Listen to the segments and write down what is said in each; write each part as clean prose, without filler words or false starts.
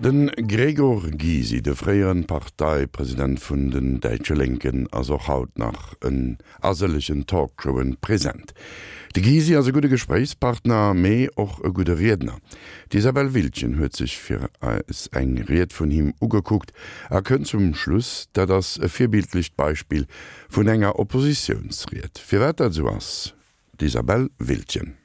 De Gregor Gysi, de fréieren Parteipresident vun den däitsche Lénken, ass och haut nach en a sëllegen Talkshowen present. De Gysi ass e gudde Gespréichspartner, mee och e gudde Riedner. D'Isabelle Wildgen huet sech fir eis eng Ried vun him ugekuckt a kënnt zum Schluss, dat ass e virbildlecht Beispill vun enger Oppositiounsried. Firwat dat esou ass, d'Isabelle Wildgen.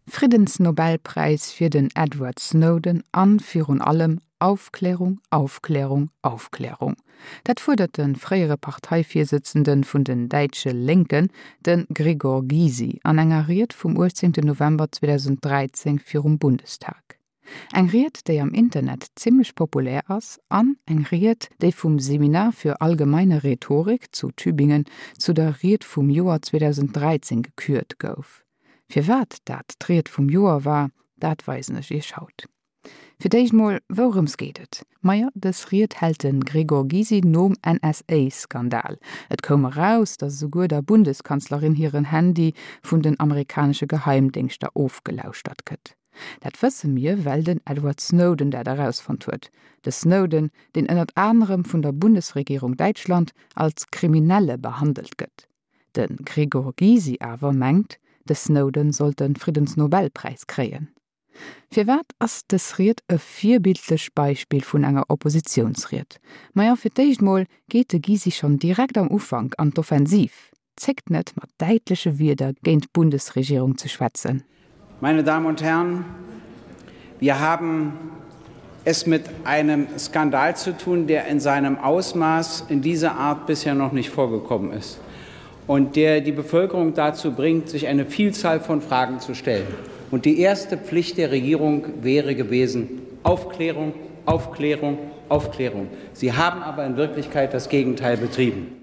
Friddensnobelpräis fir den Edward Snowden an virun allem Aufklärung, Aufklärung, Aufklärung. Dat fuerdert de fréiere Parteivirsëtzende vun den däitsche Lénken, de Gregor Gysi, an enger Ried vum 18 November 2013 virum Bundestag. Eng Ried, déi am Internet zimmlech populär ass an eng Ried, déi vum Seminar für allgemeine Rhetorik zu Tübingen zu der Ried vum Joer 2013 gekürt gouf. Firwat dat d'Ried vum Joer war, dat weisen ech iech haut. Fir d'éischt mol, wourëms geet et? Majo, dës Ried hält de Gregor Gysi nom NSA-Skandal. Et koum eraus, datt esouguer der Bundeskanzlerin hiren Handy vun den amerikanesche Geheimdéngschter ofgelauschtert gëtt. Dat wësse mir, well den Edward Snowden dat erausfonnt huet. De Snowden, deen ënnert anerem vun der Bundesregierung Däitschland als Kriminelle behandelt gëtt. De Gregor Gysi awer mengt, de Snowden sollt de Friddensnobelpräis kréien. Firwat ass dës Ried e virbildlecht Beispill vun enger Oppositiounsried? Majo, fir d'éischt mol geet de Gysi schonn direkt am Ufank an d'Offensiv, zéckt net mat däitleche Wierder géint d'Bundesregierung ze schwätzen. Meine Damen und Herren, wir haben es mit einem Skandal zu tun, der in seinem Ausmaß in dieser Art bisher noch nicht vorgekommen ist und der die Bevölkerung dazu bringt, sich eine Vielzahl von Fragen zu stellen. Und die erste Pflicht der Regierung wäre gewesen Aufklärung, Aufklärung, Aufklärung. Sie haben aber in Wirklichkeit das Gegenteil betrieben.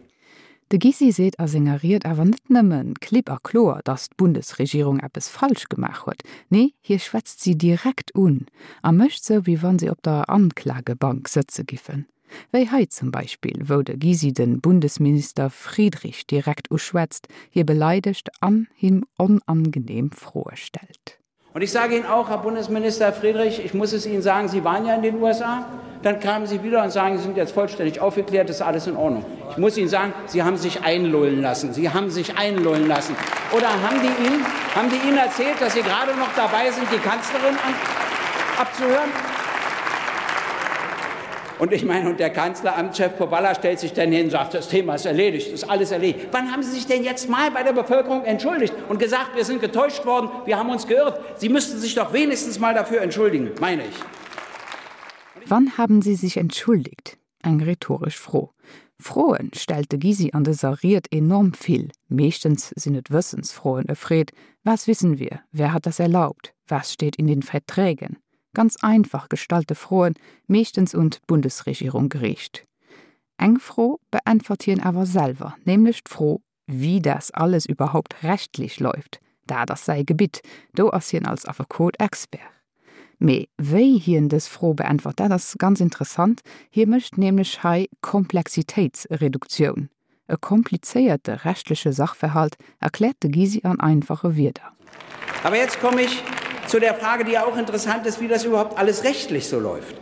De Gysi seet a senger Ried awer net nëmme klipp a kloer, datt d'Bundesregierung eppes falsch gemaach huet, nee, hie schwätzt si direkt un a mécht sou, wéi wa si op der Anklagebank sëtze giffen. Wéi hei zum Beispill, wou de Gysi de Bundesminister Friedrich direkt uschwätzt, hie beleidegt an him onangenehm Froe stellt. Und ich sage Ihnen auch, Herr Bundesminister Friedrich, ich muss es Ihnen sagen, Sie waren ja in den USA. Dann kamen Sie wieder und sagen, Sie sind jetzt vollständig aufgeklärt, ist alles in Ordnung. Ich muss Ihnen sagen, Sie haben sich einlullen lassen. Sie haben sich einlullen lassen. Oder haben die Ihnen, haben die Ihnen erzählt, dass Sie gerade noch dabei sind, die Kanzlerin an, abzuhören? Und ich meine, und der Kanzleramtschef Powalla stellt sich dann hin und sagt, das Thema ist erledigt, ist alles erledigt. Wann haben Sie sich denn jetzt mal bei der Bevölkerung entschuldigt und gesagt, wir sind getäuscht worden, wir haben uns geirrt? Sie müssten sich doch wenigstens mal dafür entschuldigen, meine ich. Wann haben Sie sich entschuldigt? Eng rhetoresch Fro. Froen stellt de Gysi an dëser Ried enorm vill. Meeschtens sinn et Wëssensfroen, e freet, Was wissen wir? Wer hat das erlaubt? Was steht in den Verträgen? Ganz einfach gestallte Froen, meeschtens un d'Bundesregierung geriicht. Eng Fro beäntwert hien awer selwer, nämlech d'Fro, wie das alles überhaupt rechtlich läuft. Dat ass säi Gebitt, do ass hien als Affekot Expert. Mee wéi hien dës Fro beäntwert, dat ass ganz interessant, hie mécht nämlech hei Komplexitéitsreduktioun. E komplizéierte rechtliche Sachverhalt erkläert de Gysi an einfache Wierder. Aber jetzt komme ich zu der Frage, die ja auch interessant ist, wie das überhaupt alles rechtlich so läuft.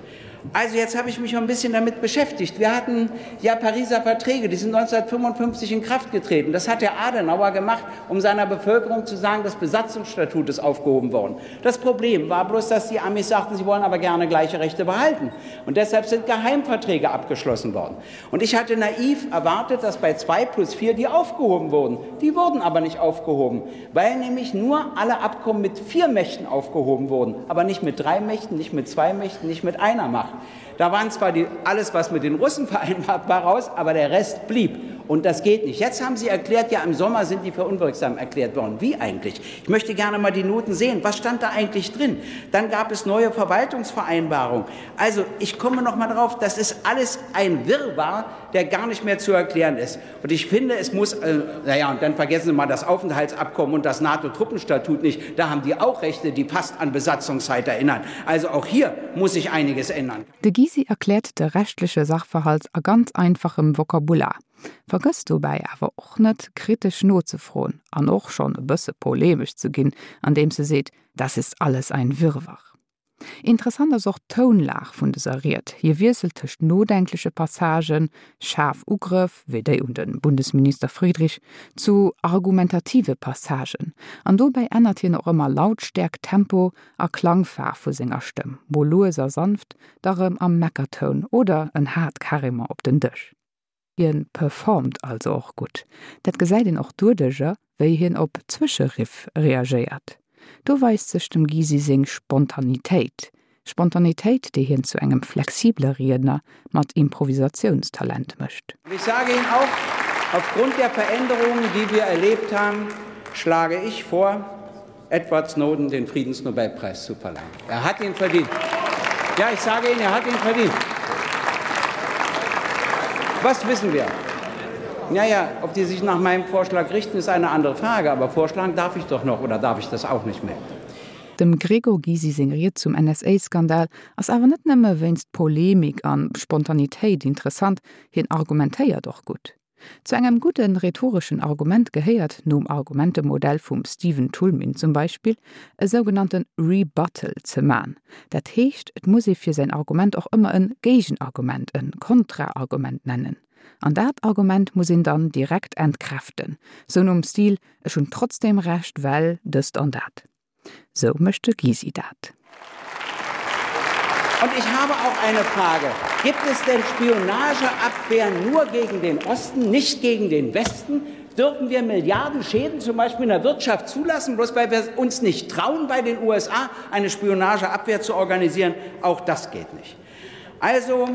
Also jetzt habe ich mich ein bisschen damit beschäftigt. Wir hatten ja Pariser Verträge, die sind 1955 in Kraft getreten. Das hat der Adenauer gemacht, um seiner Bevölkerung zu sagen, das Besatzungsstatut ist aufgehoben worden. Das Problem war bloß, dass die Amis sagten, sie wollen aber gerne gleiche Rechte behalten. Und deshalb sind Geheimverträge abgeschlossen worden. Und ich hatte naiv erwartet, dass bei 2 plus 4 die aufgehoben wurden. Die wurden aber nicht aufgehoben, weil nämlich nur alle Abkommen mit vier Mächten aufgehoben wurden, aber nicht mit drei Mächten, nicht mit zwei Mächten, nicht mit einer Macht. Da waren zwar die, alles, was mit den Russen vereinbart war, raus, aber der Rest blieb. Und das geht nicht. Jetzt haben Sie erklärt, ja, im Sommer sind die für unwirksam erklärt worden. Wie eigentlich? Ich möchte gerne mal die Noten sehen. Was stand da eigentlich drin? Dann gab es neue Verwaltungsvereinbarungen. Also, ich komme noch mal drauf, das ist alles ein Wirrwarr, der gar nicht mehr zu erklären ist. Und ich finde, es muss, äh, naja, und dann vergessen Sie mal das Aufenthaltsabkommen und das NATO-Truppenstatut nicht. Da haben die auch Rechte, die fast an Besatzungszeit erinnern. Also auch hier muss sich einiges ändern. De Gysi erkläert de rechtleche Sachverhalt a ganz einfachem Vokabular, vergësst dobäi awer och net, kritesch nozefroen an och schonn e bësse polemesch ze ginn, andeems e seet, Das ist alles ein Wirrwarr. Interessant ass och d'Tounlag vun dëser Ried. Hie wiesselt tëscht nodenkleche Passagen, schaarf Ugrëff, wéi déi un de Bundesminister Friedrich, zu argumentative Passagen. An dobäi ännert hien och ëmmer Lautstäerkt, Tempo a Klangfaarf vu senger Stëmm, mol lues a sanft, da rëm am Meckertoun oder en haart carrément op den Dësch. Hien performt also och gutt. Dat gesäit een och doduercher, wéi hien op Zwëscheriff reagéiert. Do weist sech dem Gysi seng Spontanitéit. Spontanitéit, déi hien zu engem flexibele Riedner mat Improvisatiounstalent mécht. Und ich sage Ihnen auch, aufgrund der Veränderungen, die wir erlebt haben, schlage ich vor, Edward Snowden den Friedensnobelpreis zu verleihen. Er hat ihn verdient. Ja, ich sage Ihnen, er hat ihn verdient. Was wissen wir? Naja, ob die sich nach meinem Vorschlag richten, ist eine andere Frage, aber vorschlagen darf ich doch noch oder darf ich das auch nicht mehr? Dem Gregor Gysi seng Ried zum NSA-Skandal ass awer net nëmme wéinst Polemik an Spontanitéit interessant, hien argumentéiert och gutt. Zu engem gudde rhetoreschen Argument gehéiert, nom Argumentemodell vum Stephen Toulmin zum Beispill, e sougenannte Rebuttal ze man. Dat heescht, et muss ee fir säin Argument och ëmmer e Géigenargument, e Kontraargument nennen. An dat Argument muss een dann direkt entkräften, sou nom Stil, Ech hunn trotzdem Recht, well dëst an dat. Sou mécht de Gysi dat. Und ich habe auch eine Frage. Gibt es denn Spionageabwehr nur gegen den Osten, nicht gegen den Westen? Dürfen wir Milliarden Schäden zum Beispiel in der Wirtschaft zulassen, bloß weil wir uns nicht trauen, bei den USA eine Spionageabwehr zu organisieren? Auch das geht nicht. Also,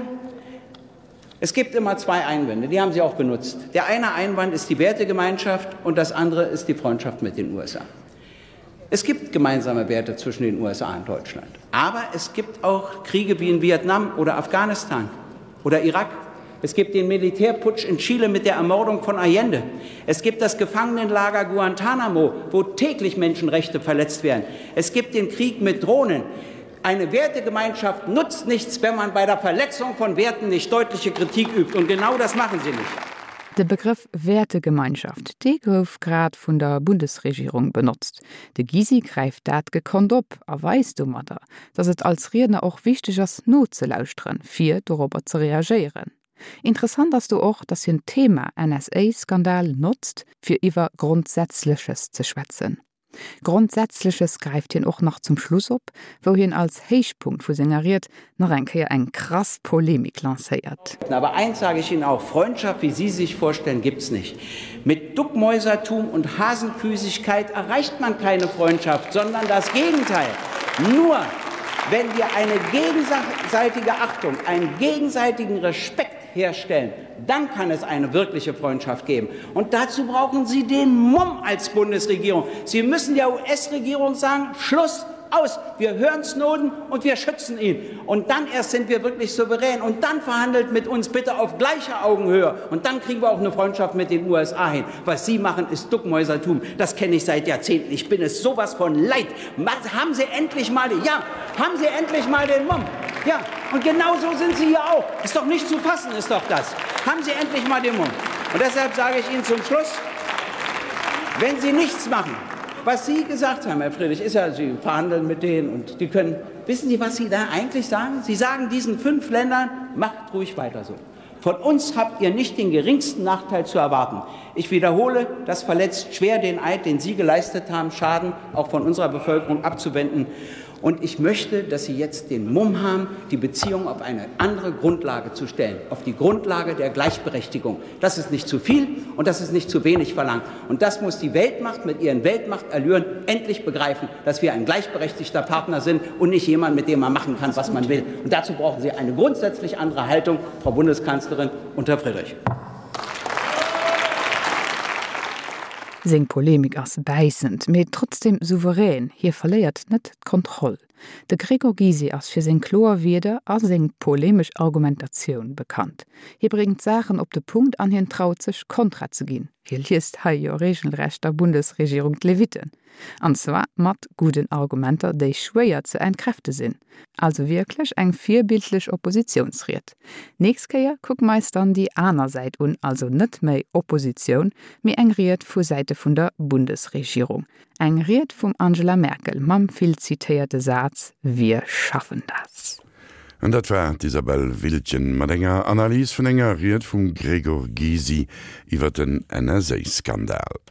es gibt immer zwei Einwände, die haben Sie auch benutzt. Der eine Einwand ist die Wertegemeinschaft und das andere ist die Freundschaft mit den USA. Es gibt gemeinsame Werte zwischen den USA und Deutschland. Aber es gibt auch Kriege wie in Vietnam oder Afghanistan oder Irak. Es gibt den Militärputsch in Chile mit der Ermordung von Allende. Es gibt das Gefangenenlager Guantanamo, wo täglich Menschenrechte verletzt werden. Es gibt den Krieg mit Drohnen. Eine Wertegemeinschaft nutzt nichts, wenn man bei der Verletzung von Werten nicht deutliche Kritik übt. Und genau das machen Sie nicht. De Begrëff Wäertegemeinschaft, dee gouf grad vun der Bundesregierung benotzt. De Gysi gräift dat gekonnt op a weist domadder, datt et als Riedner och wichteg ass nozelauschteren, fir dorobber ze reagéieren. Interessant ass do och, datt hien d'Thema NSA-Skandal notzt, fir iwwer Grondsätzleches ze schwätzen. Grondsätzleches gräift hien och nach zum Schluss op, wou hien als Héichpunkt vu senger Ried nach eng Kéier eng krass Polemik lancéiert. Aber eins sage ich Ihnen auch, Freundschaft, wie Sie sich vorstellen, gibt's nicht. Mit Duckmäusertum und Hasenfüßigkeit erreicht man keine Freundschaft, sondern das Gegenteil. Nur wenn wir eine gegenseitige Achtung, einen gegenseitigen Respekt herstellen, dann kann es eine wirkliche Freundschaft geben. Und dazu brauchen Sie den Mumm als Bundesregierung. Sie müssen der US-Regierung sagen, Schluss aus, wir hören Snowden und wir schützen ihn. Und dann erst sind wir wirklich souverän. Und dann verhandelt mit uns bitte auf gleicher Augenhöhe. Und dann kriegen wir auch eine Freundschaft mit den USA hin. Was Sie machen, ist Duckmäusertum. Das kenne ich seit Jahrzehnten. Ich bin es sowas von leid. Haben Sie endlich mal, ja, haben Sie endlich mal den Mumm. Ja, und genau so sind Sie hier auch. Ist doch nicht zu fassen, ist doch das. Haben Sie endlich mal den Mumm. Und deshalb sage ich Ihnen zum Schluss, wenn Sie nichts machen, was Sie gesagt haben, Herr Friedrich, ist ja, Sie verhandeln mit denen und die können. Wissen Sie, was Sie da eigentlich sagen? Sie sagen diesen fünf Ländern, macht ruhig weiter so. Von uns habt ihr nicht den geringsten Nachteil zu erwarten. Ich wiederhole, das verletzt schwer den Eid, den Sie geleistet haben, Schaden auch von unserer Bevölkerung abzuwenden. Und ich möchte, dass Sie jetzt den Mumm haben, die Beziehung auf eine andere Grundlage zu stellen, auf die Grundlage der Gleichberechtigung. Das ist nicht zu viel und das ist nicht zu wenig verlangt. Und das muss die Weltmacht mit ihren Weltmachterlüren endlich begreifen, dass wir ein gleichberechtigter Partner sind und nicht jemand, mit dem man machen kann, was man will. Und dazu brauchen Sie eine grundsätzlich andere Haltung, Frau Bundeskanzlerin und Herr Friedrich. Seng Polemik ass bäissend, mee trotzdem souverän, hie verléiert net d'Kontroll. De Gregor Gysi ass fir seng kloer Wierder a seng polemesch Argumentatioun bekannt. Hie bréngt d'Saachen op de Punkt an hien traut sech, Kontra ze ginn. Hie liest hei jo regelrecht der Bundesregierung d'Levitten. An zwar mat gudden Argumenter, déi schwéier ze entkräfte sinn. Also wierklech eng virbildlech Oppositiounsried. Nächst Kéier kucke mer eis dann déi aner Säit un, also net méi Oppositioun, mee eng Ried vu Säite vun der Bundesregierung. Eng Ried vum Angela Merkel mam vill zitéierte Saz Wir schaffen das. An dat war d'Isabelle Wiltgen mat enger Analys vun enger Ried vum Gregor Gysi iwwer den NSA-Skandal.